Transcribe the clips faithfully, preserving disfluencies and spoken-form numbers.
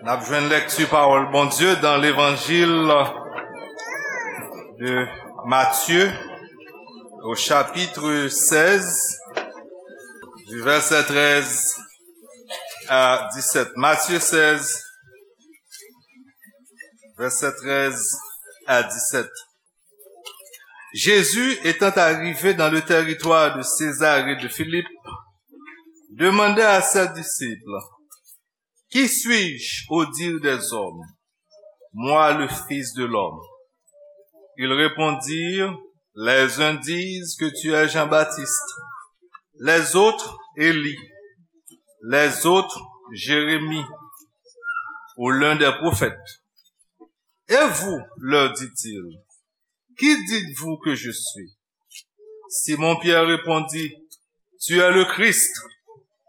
N ap jwenn lèkti pawòl Bondye dans l'évangile de Matthieu, au chapitre seize, du verset treize à dix-sept. Matthieu seize, verset treize à dix-sept. Jésus, étant arrivé dans le territoire de Césarée de Philippe, demanda à ses disciples: « Qui suis-je au dire des hommes, moi, le Fils de l'homme ? » Ils répondirent : « Les uns disent que tu es Jean-Baptiste, les autres Élie, les autres Jérémie ou l'un des prophètes. Et vous, leur dit-il, qui dites-vous que je suis ? » Simon-Pierre répondit : « Tu es le Christ,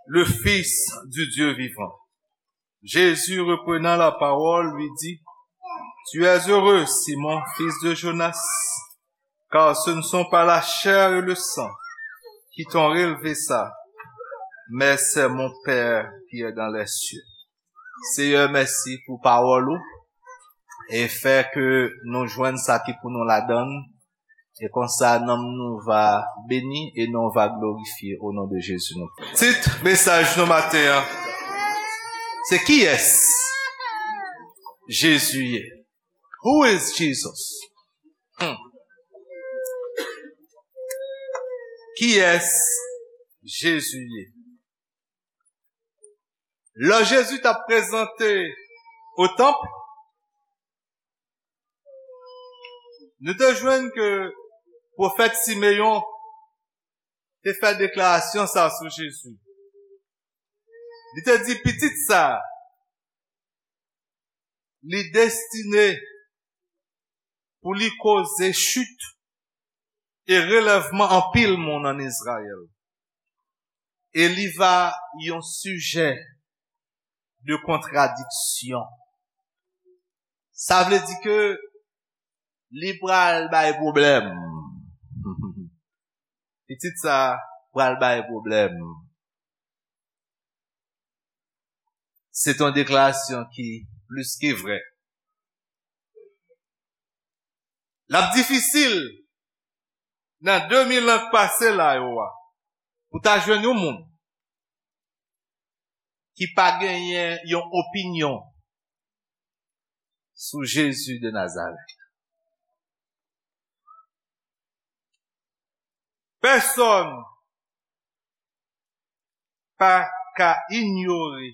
le Fils du Dieu vivant. » Jésus, reprenant la parole, lui dit : « Tu es heureux, Simon, fils de Jonas, car ce ne sont pas la chair et le sang qui t'ont révélé ça, mais c'est mon Père qui est dans les cieux. » Seyè, mèsi pou pawòl ou e fè ke nou jwenn sa ki pou nou ladan l. E konsa, nanm nou va beni e non va glorifye o non de Jezi nou. Tit mesaj nou maten an, se kiyès Jezi ye? Who is Jesus? Hmm. Kiyès Jezi ye? Lè Jezi t ap prezante o tanp, nou te jwenn ke pwofèt Simeyon te fè deklarasyon sa sou Jezi. Li te di, pitit sa, li destine pou li koze chit e relèvman anpil moun ann Izrayèl. E li va yon sijè de kontradiksyon. Sa vle di ke li pral bay pwoblèm. Pitit sa pral bay pwoblèm. Se t yon deklarasyon ki plis ke vrè. L ap difisil nan de mil an k pase la yo a, pou ta jwenn yon moun ki pa genyen yon opinyon sou Jezi de Nazarèt. Pèsonn pa ka inyore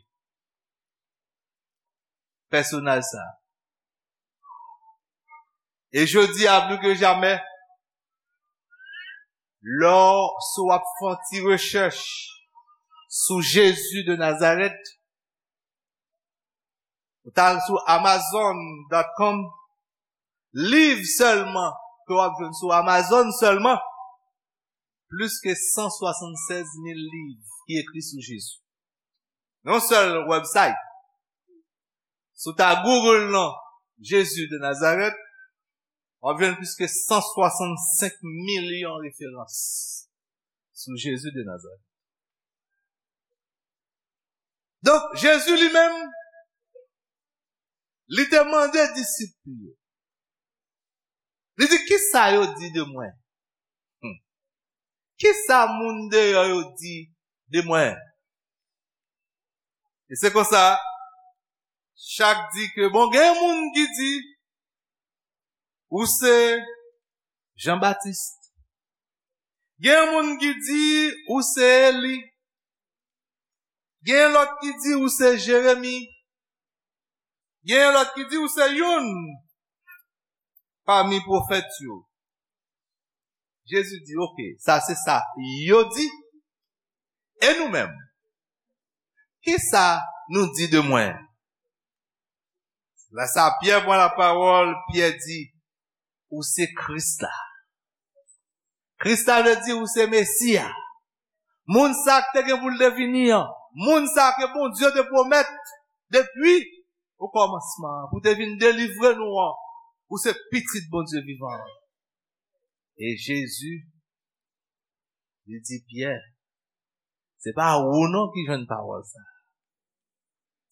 pèsonaj sa a. E jodi a, plis ke jamè, lè w, si w ap fè yon ti rechèch sou Jezi de Nazarèt, ou t al sou amazon dot com, liv sèlman ke w ap jwenn sou Amazon sèlman, plis ke san swasannsèz mil liv ki ekri sou Jezi. Yon sèl website. Si w ta Google non Jezi de Nazarèt, w ap jwenn plis ke san swasannsenk milyon referans sou Jezi de Nazarèt. Donk, Jezi li menm, li te mande disip li yo. Li di, kisa yo di de mwen? Hmm. Kisa moun deyò yo di de mwen? E se konsa, chak di ke, bon, gen moun ki di, ou se Jan Batis. Gen moun ki di, ou se Eli. Gen lòt ki di, ou se Jeremi. Gen lòt ki di, ou se youn pami pwofèt yo. Jezi di, oke, sa se sa yo di. E nou menm? Kisa nou di de mwen? Lè sa Pyè pran lapawòl, Pyè di, ou se Kris la. Kris la vle di ou se Mesi a. Moun sa k te gen pou l te vini an. Moun sa ke Bondye te pwomèt depi okòmansman an, pou te vin delivre nou an. Ou se Pitit Bondye vivan an. E Jezi, li di Pyè, se pa ou non ki jwenn pawòl sa.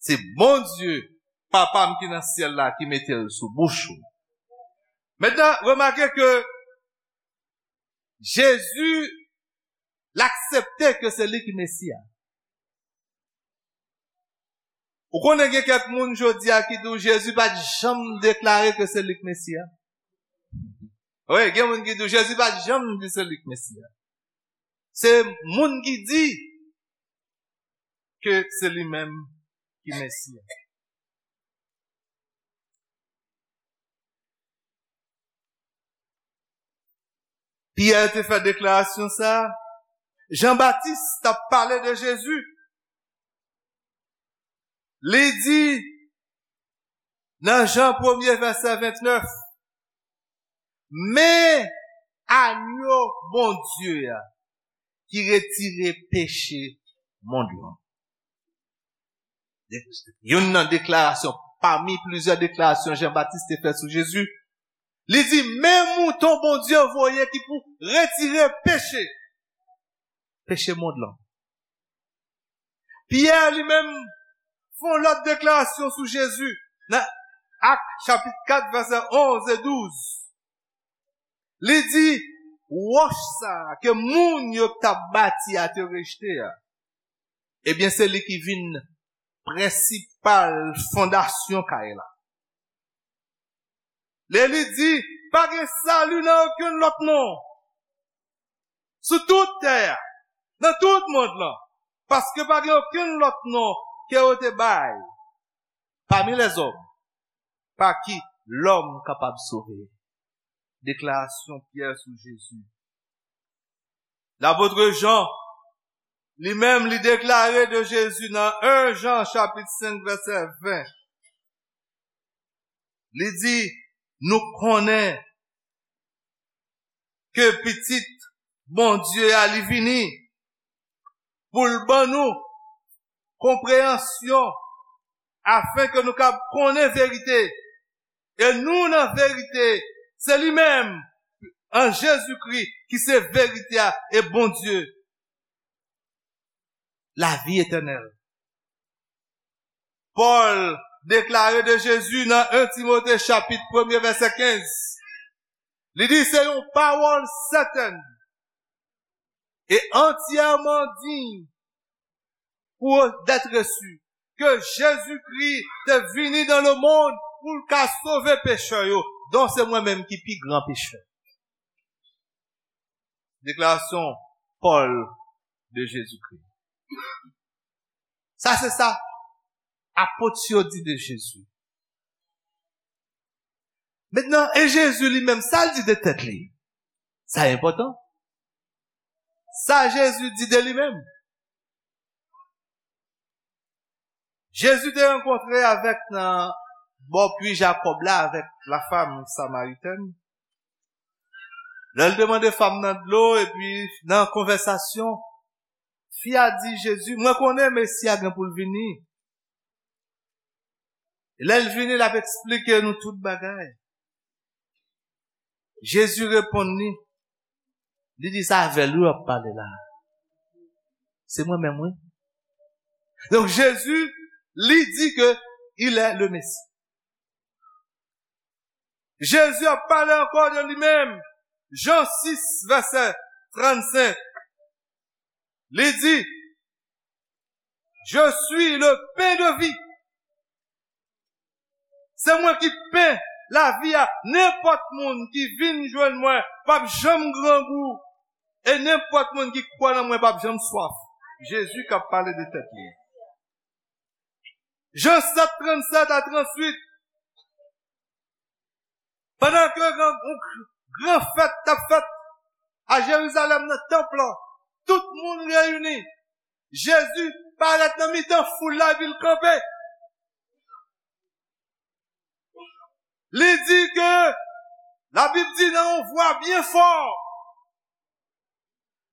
Se Bondye Papa m ki nan syèl la ki mete l sou bouch ou. Mentnan, remake ke Jezi, l aksepte ke se li ki Mesi a. Ou konnen gen kèk moun jodi a ki di w Jezi pa t janm deklare ke se li k Mesi a. Wi, gen moun ki di w Jezi pa t janm di se li k Mesi a. Se moun ki di ke se li menm ki Mesi a. Pyè te fè deklarasyon sa a. Jan Batis t ap pale de Jezi. Li di nan Jan premye vèsè vennèf, men anyo Bondye a ki retire peche mond lan. Youn nan deklarasyon, pami plizyè deklarasyon Jan Batis te fè sou Jezi, li di, men mouton Bondye voye ki pou retire peche, peche mond lan. Pyè li menm fè yon lòt deklarasyon sou Jezi nan Ak chapit kat vèsè onz e douz. Li di, wòch sa a ke moun yo t ap bati a te rejte a, ebyen, se li ki vin prensipal fondasyon kay la. Lè li di, pa gen sali nan okenn lòt non sou tout tè a, nan tout mond lan, paske pa gen okenn lòt non ke yo te bay pami lèzòm pa ki lòm kapab sove. Deklarasyon Pyè sou Jezi. Lapot Jan, li menm, li deklare de Jezi nan en Jan chapit senk vèsè ven. Li di, nou konnen ke Pitit Bondye a li vini pou l ban nou konpreyansyon, afen ke nou kab konnen verite. E nou nan verite, se li menm, an Jezikri, ki se verite a e Bondye. Lavi etènèl. Pòl deklare de Jezi nan en Timote chapit premye vèsè kenz. Li di se yon pawòl sètèn e antyèman diy pou d'être reçu, ke Jezikri te vini dans le monde pou l ka sove pechè yo, dont se mwen menm ki pi gran pechè. Deklarasyon Pòl de Jezikri. Sa se sa apot yo di de Jezi. Mentnan, e Jezi li menm, sa l di de tèt li? Sa enpòtan. Sa Jezi di de li menm. Jezi te rankontre avèk nan bò pwi Jakòb la avèk la fam samaritèn. Lè l te mande fam nan dlo, epi nan konvèsasyon, fi a di Jezi, mwen konnen Mesi a gen pou l vini. E lè l vini, l ap eksplike nou tout bagay. Jezi reponn li, li di sa avè l wi w ap pale la. Se mwen menm wi. Donk Jezi, li di ke il est le Messie. Jezi ap pale ankò de li menm. Jan sis, vèsè trannsenk. Li di, je suis le pain de vie. Se mwen ki pen lavi a. Nenpòt moun ki vin jwenn mwen p ap janm grangou. E nenpòt moun ki kwè nan mwen p ap janm swaf. Jezi k ap pale de tèt li. Jan sèt, trannsèt a trannuit. Pandan ke gran, yon gran fèt t ap fèt a Jerizalèm nan tanp lan, tout moun reyini. Jezi parèt nan mitan foul la epi l kanpe. Li di ke, Labib di nan yon vwa byen fò,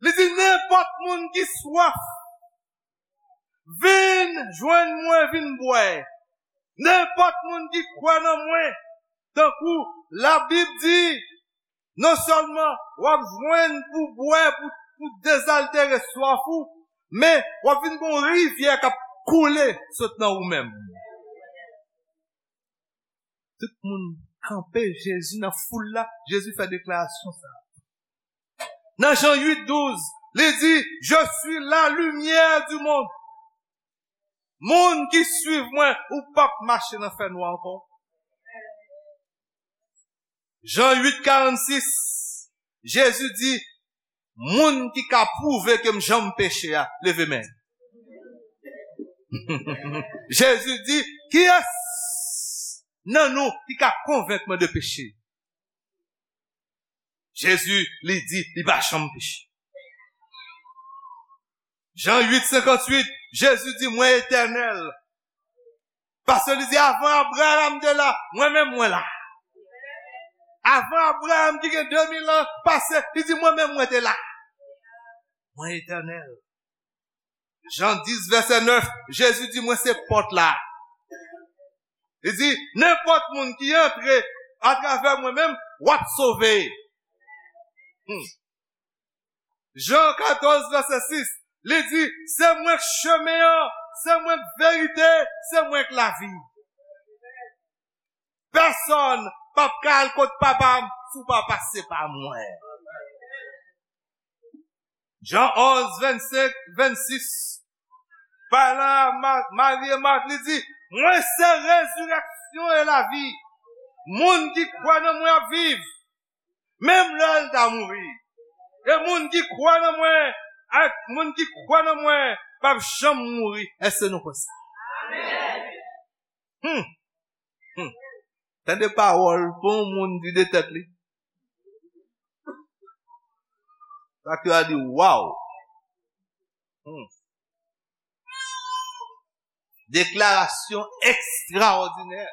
li di, nenpòt moun ki swaf, vin jwenn mwen, vin bwè. Nenpòt moun ki kwè nan mwen, tankou Labib di, non sèlman w ap jwenn pou bwè, pou, pou dezaltere swaf ou, men w ap vin gen yon rivyè k ap koule sot nan ou menm. Tout moun kanpe, Jezi nan foul la, Jezi fè deklarasyon sa. Nan Jan uit douz, li di, "Je suis la lumière du monde." Moun ki swiv mwen, ou p ap mache nan fènwa ankò. Jan uit karannsis, Jezi di, "Moun ki ka pwouve ke m janm peche a, leve men." Jezi di, "Kiyès nan nou ki ka konvenk mwen de peche?" Jezi, li di, li pa janm peche. Jan uit senkantuit, Jezi di, "Mwen etènèl." Paske li di, "Avan Abraram te la, mwen menm mwen la." Avan Abraram ki gen de mil an pase, li di, "Mwen menm mwen te la." Mwen etènèl. Jan dis, vèsè nèf, Jezi di, "Mwen se pòt la." Li di, "Nenpòt moun ki antre atravè mwen menm, w ap sove." Hmm. Jan katòz, vèsè sis, li di, "Se mwen k chemen an, se mwen k verite, se mwen k lavi. Pèsonn p ap ka al kot Papa m si w pa pase pa mwen." Jan onz, vennsenk, vennsis, palan a Ma-, Mari e Mat, li di, "Mwen se rezirèksyon e lavi. Moun ki kwè nan mwen ap viv, menm lè l ta mouri. E moun ki kwè nan mwen, ak moun ki kwè nan mwen, p ap janm mouri." Èske nou kwè sa? Amèn. Hmm. Hmm. Tande pawòl pou yon moun di de tèt li. Sa ki a di, "Waw!" Hmm. Deklarasyon ekstraòdinè.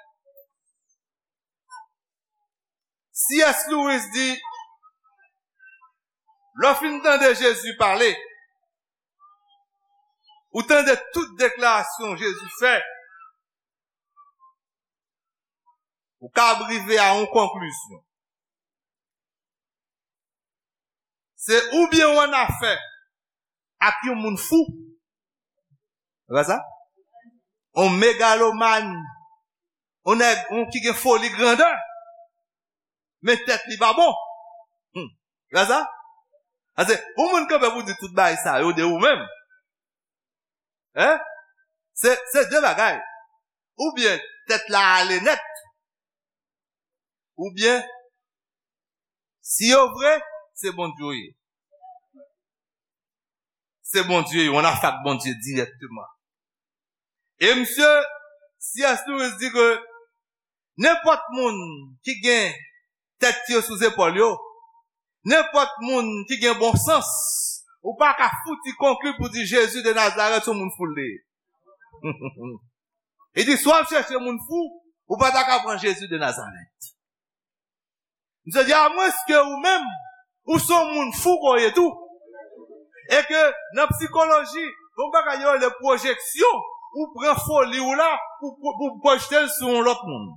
C S Lewis di, lè w fin tande Jezi pale, ou tande tout deklarasyon Jezi fè, ou kab rive a yon konklizyon. Se oubyen w annafè ak yon moun fou. Se pa sa? On megalomàn, on nèg, on ki gen foli grandè, men tèt li pa bon. Hmm. Se pa sa? Paske pou moun kanpe pou di tout bagay sa yo de ou menm, hein? Se, se de bagay. Oubyen tèt la ale nèt, oubyen, si yo vre, se Bondye yo ye. Se Bondye yo, on afak Bondye dirèkteman. E misye, C S Lewis di ke nenpòt moun ki gen tèt yo sou zepòl yo, nenpòt moun ki gen bon sans, ou pa ka fouti konkli pou di Jezi de Nazarèt se yon moun fou l ye. Li di, si w ap chèche moun fou, ou pa ta ka pran Jezi de Nazarèt. Misye di, amwenske ou menm, ou se yon moun fou ke w ye tou. E ke nan psikoloji, gen yon bagay yo rele pwojeksyon, ou pran foli w la, pou, pou, pou pwojte l sou yon lòt moun.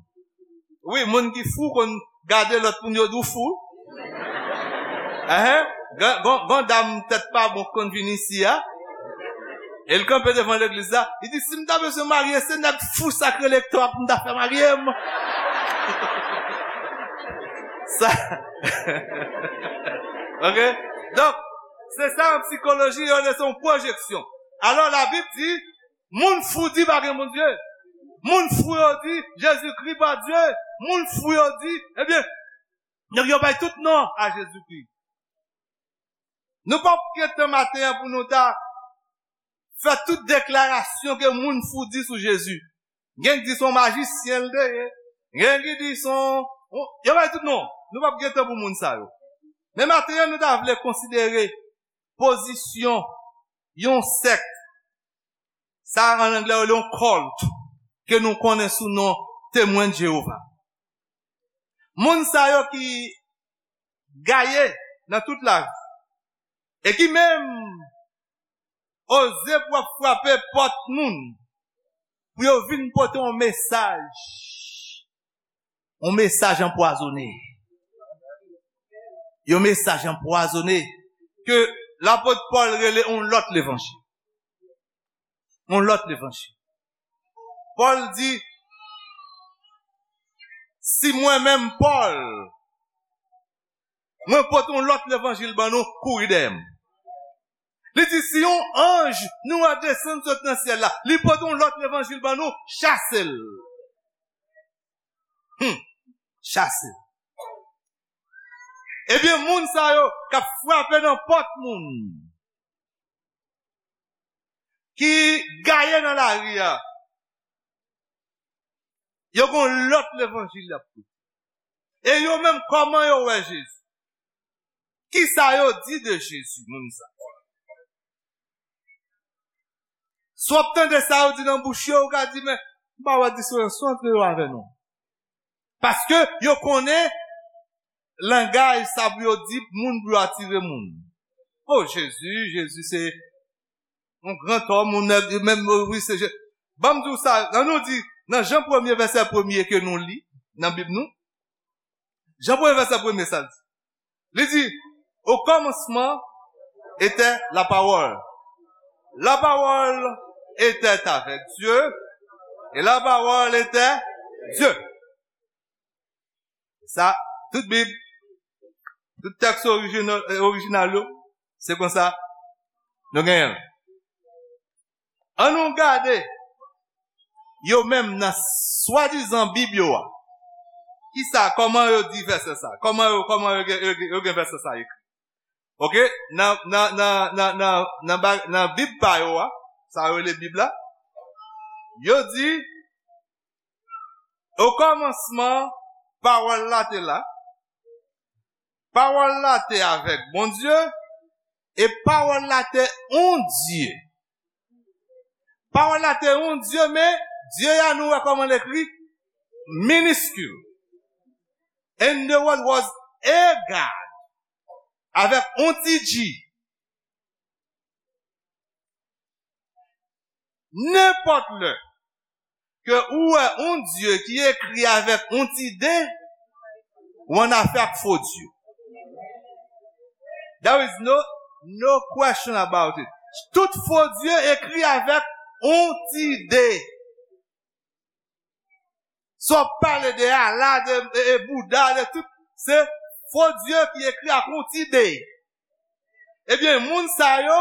Wi, moun ki fou konn gade lòt moun, yo di w fou. Enhen. Gen, gen, gen dam tèt pa bon konn vin isi a. E l kanpe devan legliz la. Li di, si m ta bezwen marye, se nèg fou sa k rele Ektò a pou m ta fè marye m. Sa. Ok? Donk, se sa an psikoloji, yo rele se yon pwojeksyon. Alò, Labib di, moun fou di pa gen Bondye. Moun fou yo di, Jezikri pa Dye. Moun fou yo di, ebyen, donk yo bay tout non a Jezikri. Nou p ap gen tan maten an pou nou ta fè tout deklarasyon ke moun fou di sou Jezi. Gen ki di se yon majisyen l te ye. Gen ki di se yon, yon, yo bay tout non. Nou p ap gen tan pou moun sa yo. Men maten an, nou ta vle konsidere pozisyon yon sèk. Sa, an anglè, yo rele yon cult, ke nou konnen sou non Temwen de Jewova. Moun sa yo ki gaye nan tout lavi, e ki menm oze pou ap frape pòt moun, pou yo vin pote yon mesaj, yon mesaj anpwazonnen. Yon mesaj anpwazonnen ke lapot Pòl rele yon lòt levanjil. Yon lòt levanjil. Pòl di, Si mwen menm, Pòl, mwen pote yon lòt levanjil ban nou, kouri dèyè m. Li di, si yon anj nou a desann sot nan syèl la, li pote yon lòt levanjil ban nou, chase l. Hmm. Chase l. Ebyen, moun sa yo k ap frape nan pòt moun, ki gaye nan lari a, yo gon lòt levanjil y ap pote. E yo menm, kòman yo wè Jezi? Kisa yo di de Jezi, moun sa? Si w ap tande sa yo di nan bouch yo, ou ka di, men, m pa wè diferans non antre yo avè nou. Paske yo konnen langaj sa pou yo di moun pou yo atire moun. O Jezi, Jezi se yon gran òm, yon nèg, menm, wi, se Je-, ban m di w sa, ann nou di, nan Jan premye, vèsè premye ke nou li nan Bib nou, Jan premye, vèsè premye, sa l di. Li di, au commencement était la parole. La parole était avec Dieu, et la parole était Dieu. Sa, tout Bib, tout tèks orijinal, orijinal yo, se konsa nou genyen l. Ann nou gade yo menm nan swadizan Bib yo a. Kisa, kòman yo di vèsè sa? Kòman yo, kòman yo gen, yo gen, yo gen vèsè sa ekri? Oke, nan, nan, nan, nan, nan, nan ba-, nan Bib pa yo a, sa yo rele Bib la, yo di, o kòmansman, pawòl la te la, pawòl la te avèk Bondye, e pawòl la te yon Dye. Pawòl la te yon Dye, men Dye a nou wè kòman l ekri, miniskil. And the word was a God, avèk yon ti G. Nenpòt lè ke ou wè yon Dye ki ekri avèk yon ti D, ou an afè ak fo Dye. There is no, no question about it. Tout fo Dye ekri avèk yon ti D. Sa w pale de Allah, de, e, e Bouda, de tout, se fo Dye ki ekri ak yon ti D. Ebyen, moun sa yo,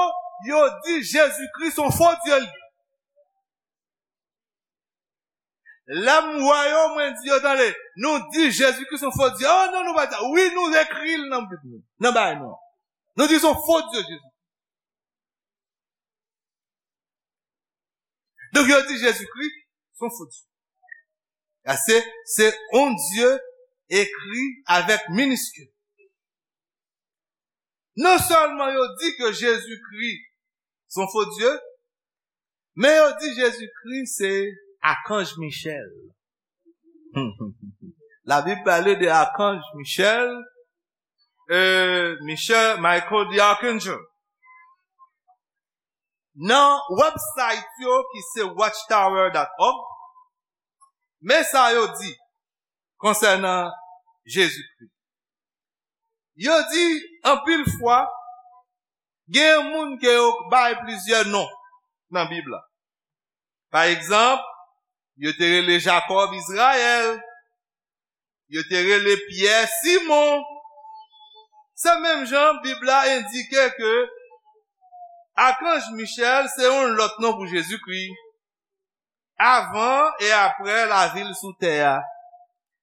yo di Jezikri se yon fo Dye li. Lè m wè yo, mwen di yo, tande, nou di Jezikri se yon fo Dye. Oh non, nou pa di sa. Wi, nou ekri l nan Bib nou, nan bagay nou. Nou di se yon fo Dye, Jezi. Donk, yo di Jezikri se yon fo Dye. A se, se yon Dye ekri avèk miniskil. Non sèlman yo di ke Jezikri se yon fo Dye, men yo di Jezikri se Akanj Michèl. Labib pale de Akanj Michèl, euh, Michel, Michael the Archangel. Nan website yo ki se watchtower dot org, men sa yo di konsènan Jezikri. Yo di, anpil fwa, gen moun ke yo bay plizyè non nan Bib la. Pa egzanp, yo te rele Jakòb Izrayèl, yo te rele Pyè Simon. Se menm jan Bib la endike ke Akanj Michèl se yon lòt non pou Jezikri, avan e apre lavi l sou tè a.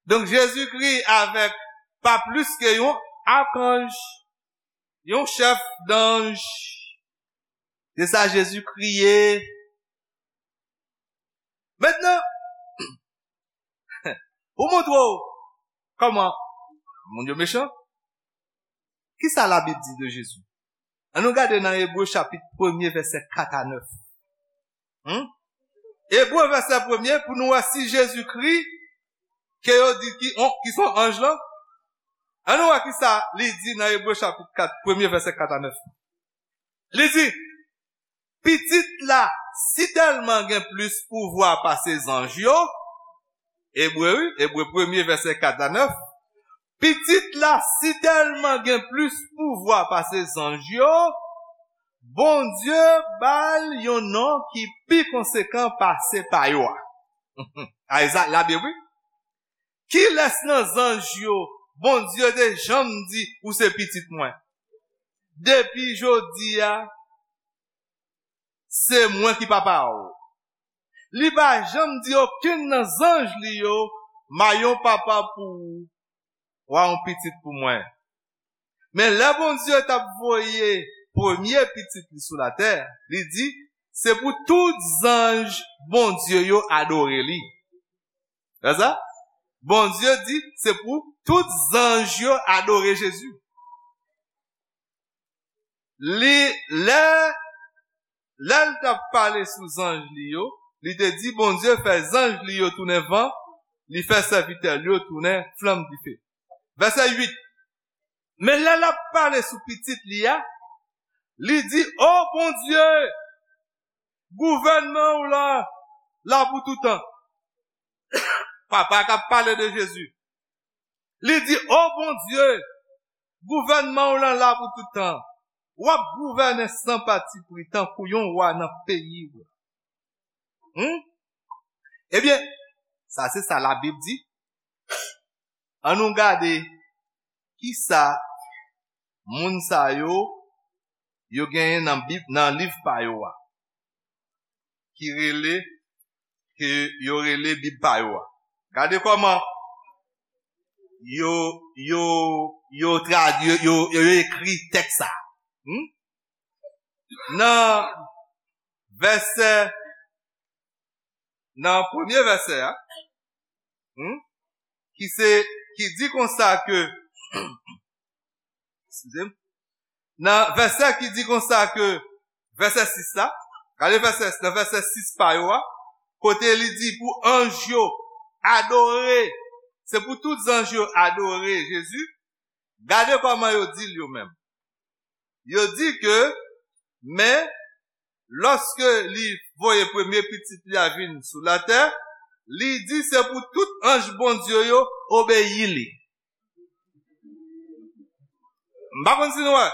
Donk, Jezikri avèk pa plis ke yon akanj, yon chèf danj. Se sa Jezikri ye. Mentnan, pou montre w kòman moun yo mechan, kisa Labib di de Jezi? Ann nou gade nan Ebre chapit premye, vèsè kat a nèf. Hmm? Ebre vèsè premye, pou nou wè si Jezikri, ke yo di ki, on, ki se yon anj lan. Ann nou wè kisa li di nan Ebre chapit kat, premye vèsè kat a nèf. Li di, Pitit la sitèlman gen plis pouvwa pase zanj yo, Ebre, wi, Ebre premye, vèsè kat a nèf. Pitit la sitèlman gen plis pouvwa pase zanj yo, Bondye ba l yon non ki pi konsekan pase pa yo a. A, e sa, Labib, wi. Kilès nan zanj yo Bondye te janm di, "Ou se pitit mwen"? Depi jodi a, se mwen ki papa w. Li pa janm di okenn nan zanj li yo, "M a yon papa pou ou, w a yon pitit pou mwen." Men lè Bondye t ap voye premye pitit li sou latè, li di, "Se pou tout zanj Bondye yo adore li." Wè sa? Bondye di, "Se pou tout zanj yo adore Jezi." Li, lè, lè l t ap pale sou zanj li yo, li te di, "Bondye fè zanj li yo tounen van, li fè sèvitè li yo tounen flanm dife." Vèsè uit. Men lè l ap pale sou pitit li a, li di, "O Bondye, gouvènman w lan la pou toutan." Papa k ap pale de Jezi. Li di, "O Bondye, gouvènman w lan la pou toutan. W ap gouvène san patipri tankou yon wa nan peyi w." Hmm? Ebyen, sa se sa Labib di. An nou gade kisa moun sa yo, yo genyen nan Bib, nan liv pa yo a, ki rele, ke yo rele Bib pa yo a. Gade kòman yo, yo, yo tradui, yo, yo, yo ekri tèks sa. Hmm? Nan vèsè, nan premye vèsè a, hmm, ki se, ki di konsa ke, eskize m, nan vèsè ki di konsa ke, vèsè sis la, gade vèsè, nan vèsè sis pa yo a, kote li di pou anj yo adore, se pou tout zanj yo adore Jezi, gade kòman yo di l yo menm. Yo di ke, men, lòske li voye premye pitit li a vin sou latè, li di se pou tout anj Bondye yo obeyi li. M pa konn si nou wè.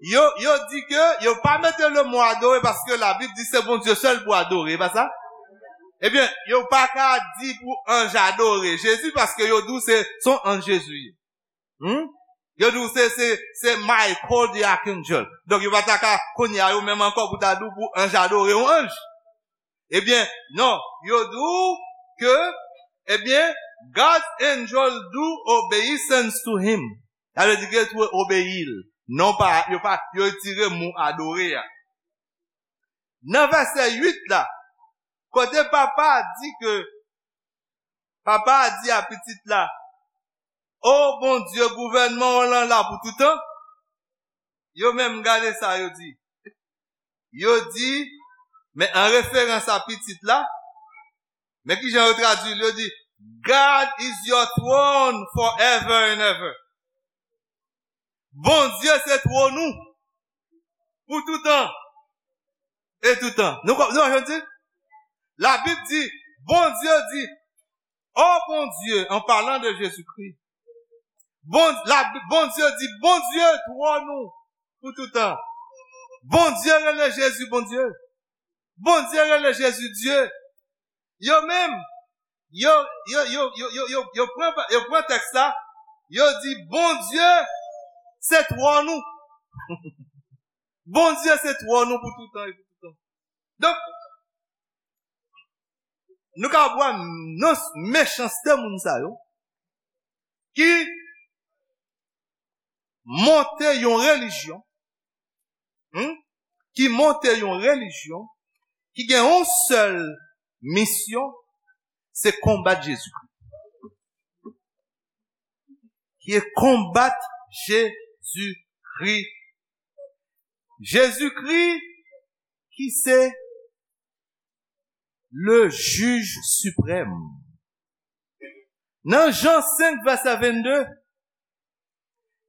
Yo, yo di ke yo pa mete le mo adore paske Labib di se Bondye sèl pou adore, e pa sa? Ebyen, yo pa ka di pou anj adore Jezi paske yo di w se, se yon anj Jezi ye. Hmm? Yo di w se, se, se Michael the Archangel. Donk, yo pa ta ka, kounye a, yo menm ankò pou ta di w pou anj adore yon anj. Ebyen, non, yo di w ke, ebyen, God's angel do obeisance to him. Sa vle di ke yo obeyi l. Non pa, yo pa, yo retire mo adore a. Nan vèsè uit la, kote papa a di ke, papa a di a pitit la, "O Bondye, gouvènman w lan la pou toutan." Yo menm gade sa yo di. Yo di, men an referans a pitit la, men kijan yo tradui l, yo di, "God is your throne forever and ever." Bondye se twòn ou pou toutan e toutan. Nou, nou wè sa m di? Labib di, Bondye di, "O Bondye," an palan de Jezikri. Bon, la, Bondye di, "Bondye twòn ou pou toutan." Bondye rele Jezi Bondye. Bondye rele Jezi Dye. Yo menm, yo, yo, yo pran, yo pran tèks la, yo di, "Bondye se twòn ou." Bondye se twòn ou pou toutan e pou toutan. Donk, nou ka wè nan mechanste moun sa yo, ki monte yon relijyon, hmm, ki monte yon relijyon, ki gen yon sèl misyon, se konbat Jezikri. Ki e konbat Jezikri. Jezikri ki se le jij siprèm. Nan Jan senk, vèsè vennde,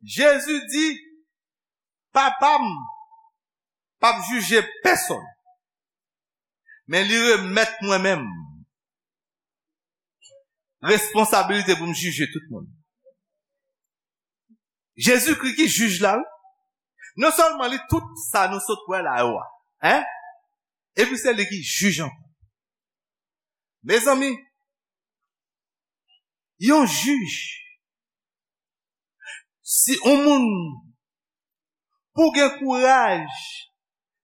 Jezi di, "Papa m p ap jije pèsonn, men li remèt mwen menm responsabilite pou m jije tout moun." Jezikri ki jij la, wi. Non sèlman li tout sa nou sot wè la yo a, en? Epi se li ki jij ankò. Mezanmi, Yon jij, si yon moun, pou gen kouraj,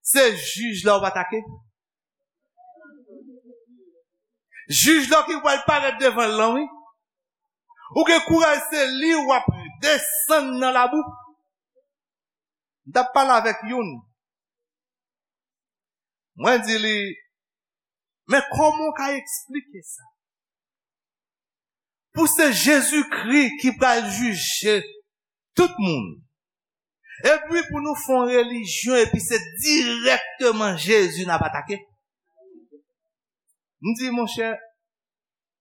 se jij la w atake. Jij la ki pral parèt devan l lan, wi. Ou gen kouraj, se li w ap desann nan labou. M t ap pale avèk youn. Mwen di li, men kòman w ka eksplike sa? Pou se Jezikri ki pral jije tout moun. Epi pou nou fè yon relijyon, epi se dirèkteman Jezi n ap atake. M di, monchè,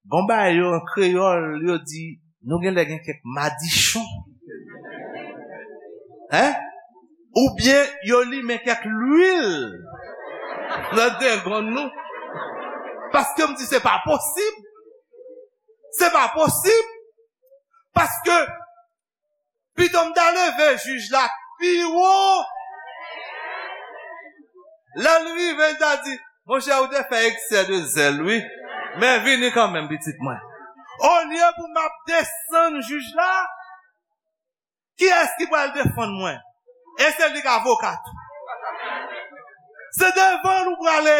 gon bagay yo an kreyòl, yo di, nou genlè gen kèk madichon. Hein? Oubyen yo limen kèk lwil nan dengonn nou. Paske m di, se pa posib. Se pa posib. Paske pito m ta leve jij la pi wo. Lè l rive, l ta di, monchè, ou te fè eksè de zèl, wi. Men vini kanmenm, pitit mwen. Olye pou m ap desann jij la, kiyès ki pral defann mwen? E se li k avoka tou. Se devan l ou prale.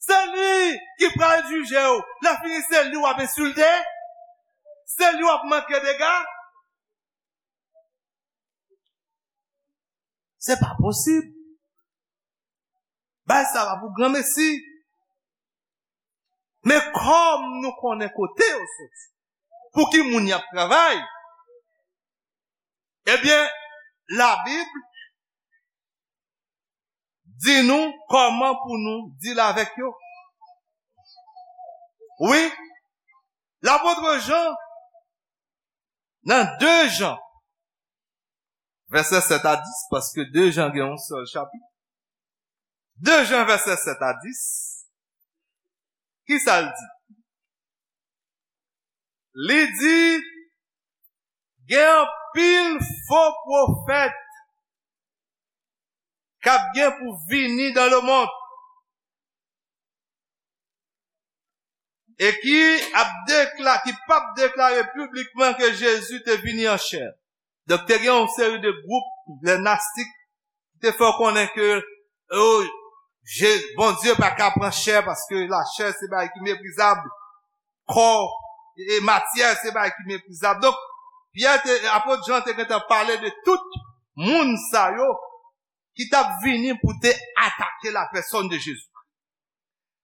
Se li ki pral jije w. Lè fini, se li w ap ensilte. Se li w ap manke dega. Se pa posib. Bay sa pa pou granmesi. Men kòm nou konnen kote yo soti, pou ki moun y ap travay, ebyen, Labib di nou kòman pou nou deal avèk yo. Wi, lapot Jan, nan de Jan, vèsè sèt a dis, paske de Jan gen yon sèl chapit. De Jan, vèsè sèt a dis, ki sa l di? Li di, gen anpil fo pwofèt k ap gen pou vini dans le monde e ki ap dekla-, ki p ap deklare piblikman ke Jezi te vini an chè. Donk, te gen yon seri de gwoup, lè nastik, ki te fè w konnen ke, oh, Je-, Bondye pa ka pran chè, paske lachè se bagay ki meprizab, kò e matyè se bagay ki meprizab. Donk, Pyè te, apot Jan te gentan pale de tout moun sa yo ki t ap vini pou te atake la pèsòn de Jezi.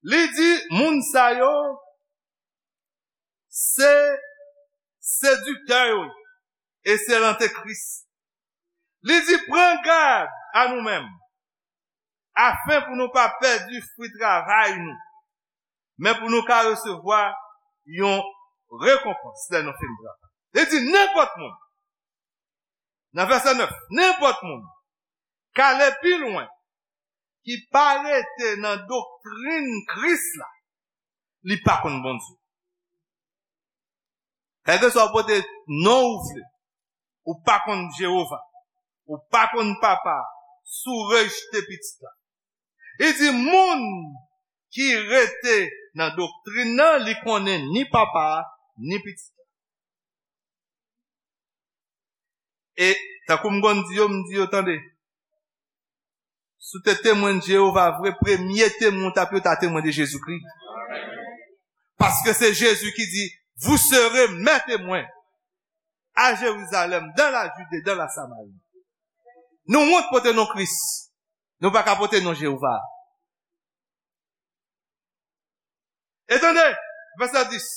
Li di, moun sa yo, se sediktè yo ye, e se lantekris. Li di, pran gad a nou menm, afen pou nou pa pèdi fwi travay nou, men pou nou ka resevwa yon rekonpans lè nou fin travay. Li di, nenpòt moun, nan vèsè nèf, nenpòt moun k ale pi lwen, ki pa rete nan doktrin Kris la, li pa konn Bondye. Kèlkeswa w pote non ou vle, ou pa konn Jewova, ou pa konn Papa, si w rejte Pitit la. Li di, moun ki rete nan doktrin nan, li konnen ni Papa a, ni Pitit la. E tankou m konn di yo, m di yo, tande, si w te temwen de Jewova vre, premye temwen w t ap ye, w ta temwen de Jezikri. Paske se Jezi ki di, vous serez mes témoins à Jérusalem, dans la Judée, dans la Samarie. Nou wont pote non Kris. Nou pa ka pote non Jewova. E tande, vèsè dis.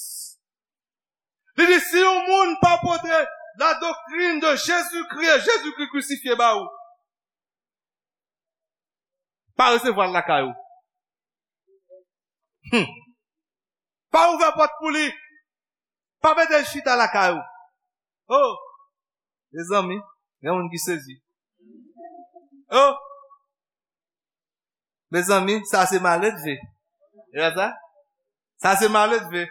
Li di, si yon moun pa pote la doktrin de Jezikri e Jezikri krisifye ba ou, pa resevwa l lakay ou. Hmm. Pa ouvè pòt pou li. Pa mete l chita lakay ou. Oh, mezanmi, gen moun ki sezi. Oh, mezanmi, sa se maledve. E pa sa? Sa se maledve.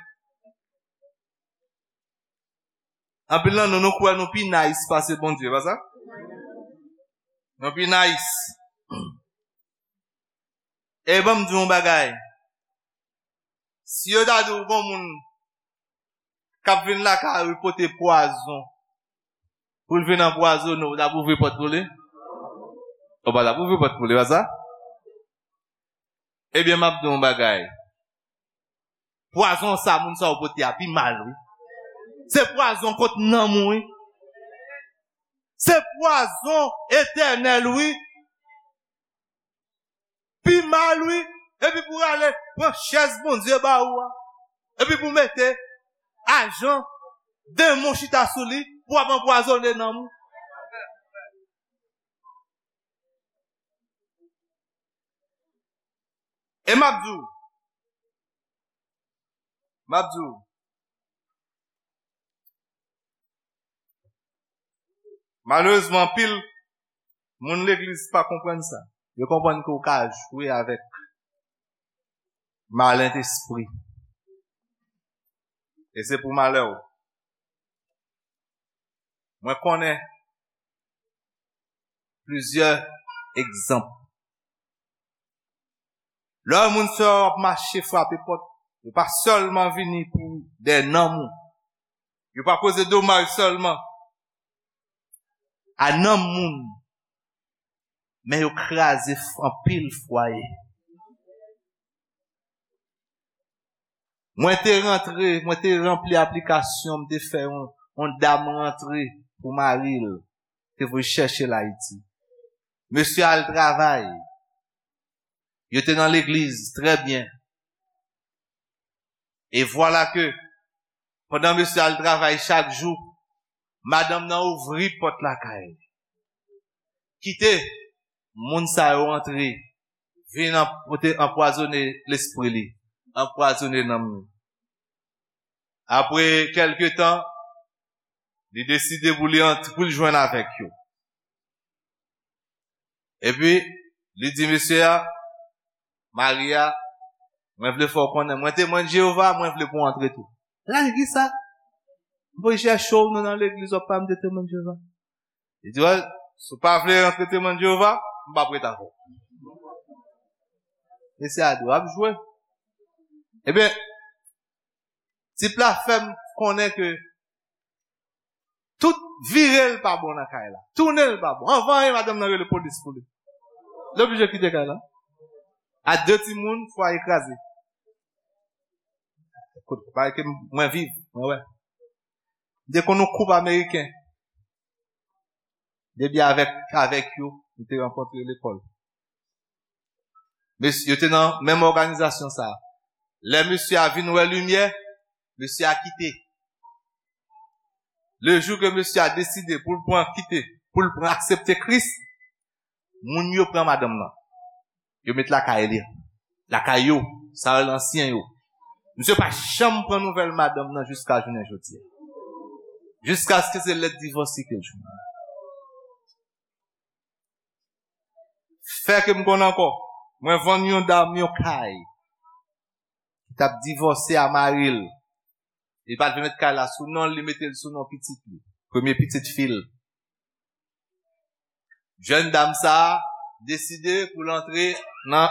Anpil nan nou, nou kwè nou pi nice pase Bondye, pa sa? Nou pi nice. E ban m di w yon bagay. Si yo ta di w gon moun k ap vin lakay ou pote pwazon pou l vin anpwazonnen w, w t ap ouvri pòt pou li? Ou pa t ap ouvri pòt pou li, pa sa? Ebyen, m ap di w yon bagay. Pwazon sa moun sa yo pote a pi mal, wi. Se pwazon kont nanm ou, wi. Se pwazon etènèl, wi. Pi mal, wi. Epi pou rale pran chèz Bondye ba ou a. Epi pou mete ajan demon chita sou li pou ap anpwazonnen nanm ou. E m ap di w, m ap di w, malerezman, anpil moun legliz pa konprann sa. Yo konprann ke w ka jwe avèk malentespri. E se pou malè w. Mwen konnen plizyè egzanp. Lè yon moun sè w ap mache frape pòt, yo pa sèlman vini pou dèyè nanm ou. Yo pa koze domaj sèlman a nanm moun, men yo kraze f-, anpil fwaye. Mwen te rantre, mwen te ranpli aplikasyon, m te fè yon, yon dam rantre pou mari l, te voye chèche l Ayiti. Mesye al travay. Yo te nan legliz, trè byen. E vwala ke, pandan mesye al travay chak jou, madanm nan ouvri pòt lakay. Kite moun sa yo antre, vin anp-, pote anpwazonnen lespri li, anpwazonnen nanm li. Apre kèlke tan, li deside pou li ant-, pou li jwenn avèk yo. Epi, li di mesye a, mari a, mwen vle fè w konnen, mwen Temwen Jewova, mwen vle pou w antre tou. L a di, kisa? M voye chèche w, nou nan legliz, w ap pale m de Temwen Jewova. Li di, wè, si w pa vle rantre Temwen Jewova, m p ap ret avè w. Mesye a di, w ap jwe. Ebyen, tip la fè m konnen ke tout vire l pa bon nan kay la. Tounen l pa bon. Anvan anyen, madanm nan rele polis pou li. Li oblije kite kay la. A de timoun, fwaye kraze. Kote, kote ke mwen viv, mwen wè. M te konn yon koup ameriken. Depi avèk, avèk yo, m te rankontre lekòl. Mesye, yo te nan menm òganizasyon sa a. Lè mesye a vin wè limyè, mesye a kite. Le jou ke mesye a deside pou l pran kite, pou l pran aksepte Kris, moun yo pran madanm nan. Yo met lakay li. Lakay yo, sa yo ansyen yo. Misye pa janm pran nouvèl madanm nan jiska jounen jodi a. Jiskaske se lèt divòs li ke l jwenn. Fè ke m konn ankò, mwen vann yon dam yon kay ki t ap divòse a mari l. Li pa t vle met kay la sou non l, li mete l sou non pitit li, premye pitit fi l. Jèn dam sa a deside pou l antre nan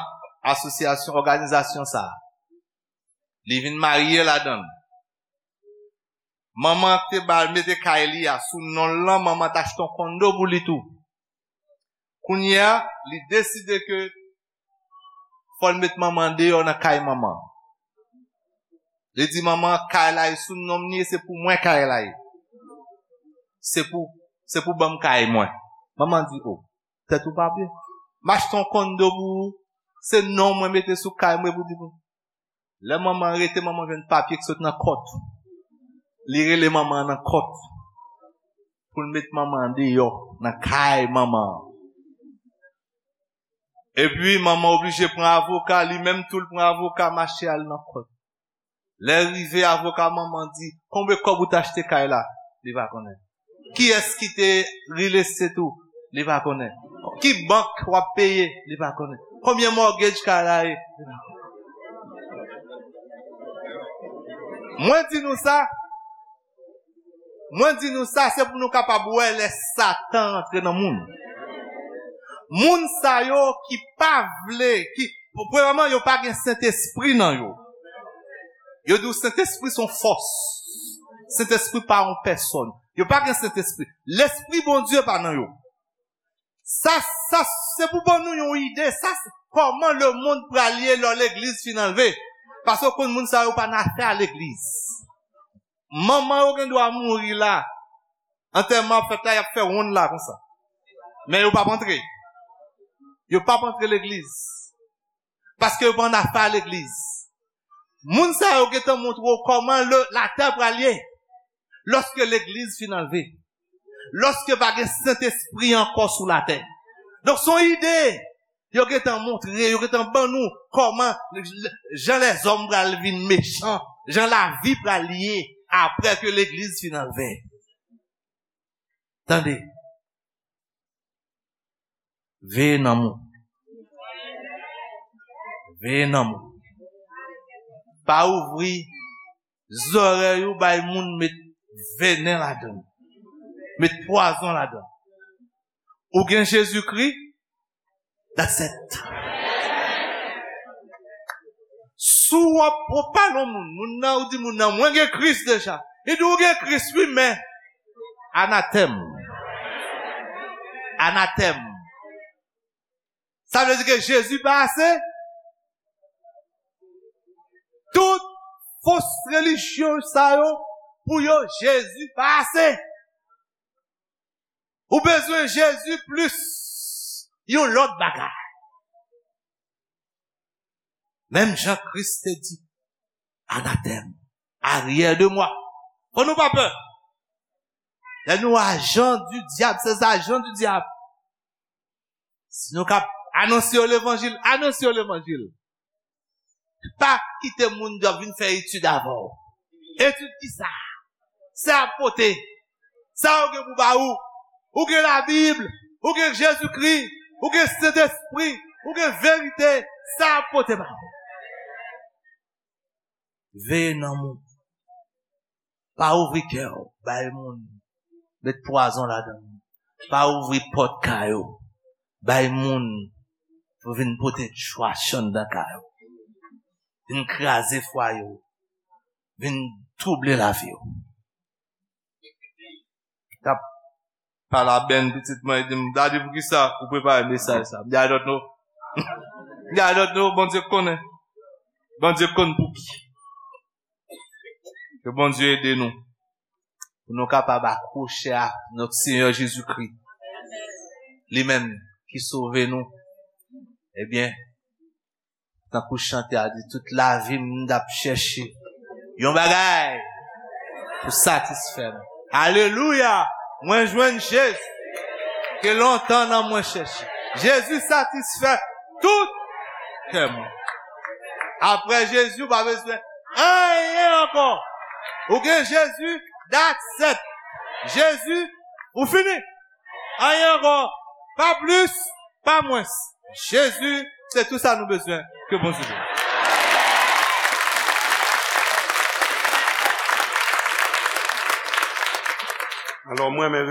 asosyasyon, òganizasyon sa a. Li vin marye ladan l. Manman an te ba l mete kay li a sou non l lan, manman an t achte yon kondo pou li tou. Kounye a, li deside ke fò l met manman an deyò nan kay manman an. Li di manman an, kay la e sou non m li ye, se pou mwen kay la ye. Se pou, se pou ban m kay mwen. Manman an di, o, tèt ou pa byen. M achte yon kondo pou ou, se non mwen mete sou kay mwen pou di pou. Lè manman an rete, manman an jwenn papye ki sot nan kòt. Li rele manman an nan kòt pou l met manman an deyò nan kay manman an. Epi manman oblije pran avoka, li menm tou l pran avoka, mache al nan kòt. Lè rive, avoka manman di, konbyen kòb ou t achte kay la? Li pa konnen. Kiyès ki te rilestet ou? Li pa konnen. Ki bank w ap peye? Li pa konnen. Konbyen mortgage kay la ye? Li pa konnen. Mwen di nou sa, mwen di nou sa, se pou nou kapab wè lè Satan rantre nan moun. Moun sa yo ki pa vle, ki, premyèman, yo pa gen Sentespri nan yo. Yo di w Sentespri se yon fòs. Sentespri pa yon pèsòn. Yo pa gen Sentespri. Lespri Bondye pa nan yo. Sa, sa, se pou ban nou yon ide. Sa, se kòman lemonn pral ye lè legliz fin anlve. Paske w konn moun sa yo pa nan afè a legliz. Manman yo gen dwa mouri la. Antèman ap fèt la, y ap fè wonn la konsa. Men yo p ap antre. Yo p ap antre legliz. Paske yo pa nan afè a legliz. Moun sa yo gentan montre w kòman le, latè pral ye. Lòske legliz fin anlve. Lòske pa gen Sentespri ankò sou latè. Donk, se yon ide. Yo gentan montre, yo gentan ban nou kòman jan lèzòm pral vin mechan, jan lavi pral ye apre ke legliz fin anlve. Tande. Veye nanm ou. Veye nanm ou. Pa ouvri zòrèy ou bay moun met venen ladan l. Met pwazon ladan l. Ou gen Jezikri, that's it. Si w ap, w ap pale yon moun, moun nan, ou di moun nan, "Mwen gen Kris deja." Li di, "Ou gen Kris, wi, men anatèm. Anatèm." Sa vle di ke Jezi pa ase? Tout fos relijyon sa yo, pou yo, Jezi pa ase. Ou bezwen Jezi plis yon lòt bagay. Menm jan Kris te di, "Anatèm, aryè de mwa." Fò nou pa pè. Lè nou ajan di dyab, se ajan di dyab. Si nou ka anonse yo levanjil, anonse yo levanjil. Pa kite moun yo vin fè etid avè w. Etid ki sa? Sa ap pote. Sa yo gen pou ba ou. Ou gen Labib, ou gen Jezikri, ou gen Sentespri, ou gen verite. Sa ap pote ba ou. Veye nanm ou. Pa ouvri kè w bay moun. Met pwazon ladan l. Pa ouvri pòt kay ou bay moun pou vin pote trash anndan kay ou. Vin kraze fwaye w. Vin twouble lavi w. T ap pale a Bèn pitit mwen, li di m, "Daddy, poukisa ou prepare mesaj sa?" M di, "I don't know." M di, "I don't know, Bondye konnen." Bondye konn pouki. Ke Bondye ede nou. Pou nou kapab akwoche a nòt Senyè Jezikri. Li menm ki sove nou. Ebyen, tankou chante a di, "Tout lavi m, m t ap chèche yon bagay pou satisfè m." Alelouya! Mwen jwenn Jezi ke lontan nan mwen chèche. Jezi satisfè tout kè mwen. Apre Jezi, ou pa bezwen anyen ankò. Ou gen Jezi, that's it. Jezi, ou fini. Anyen ankò. Pa plis, pa mwens. Jezi, se tou sa nou bezwen. Ke Bondye beni. Alò, mwen menm,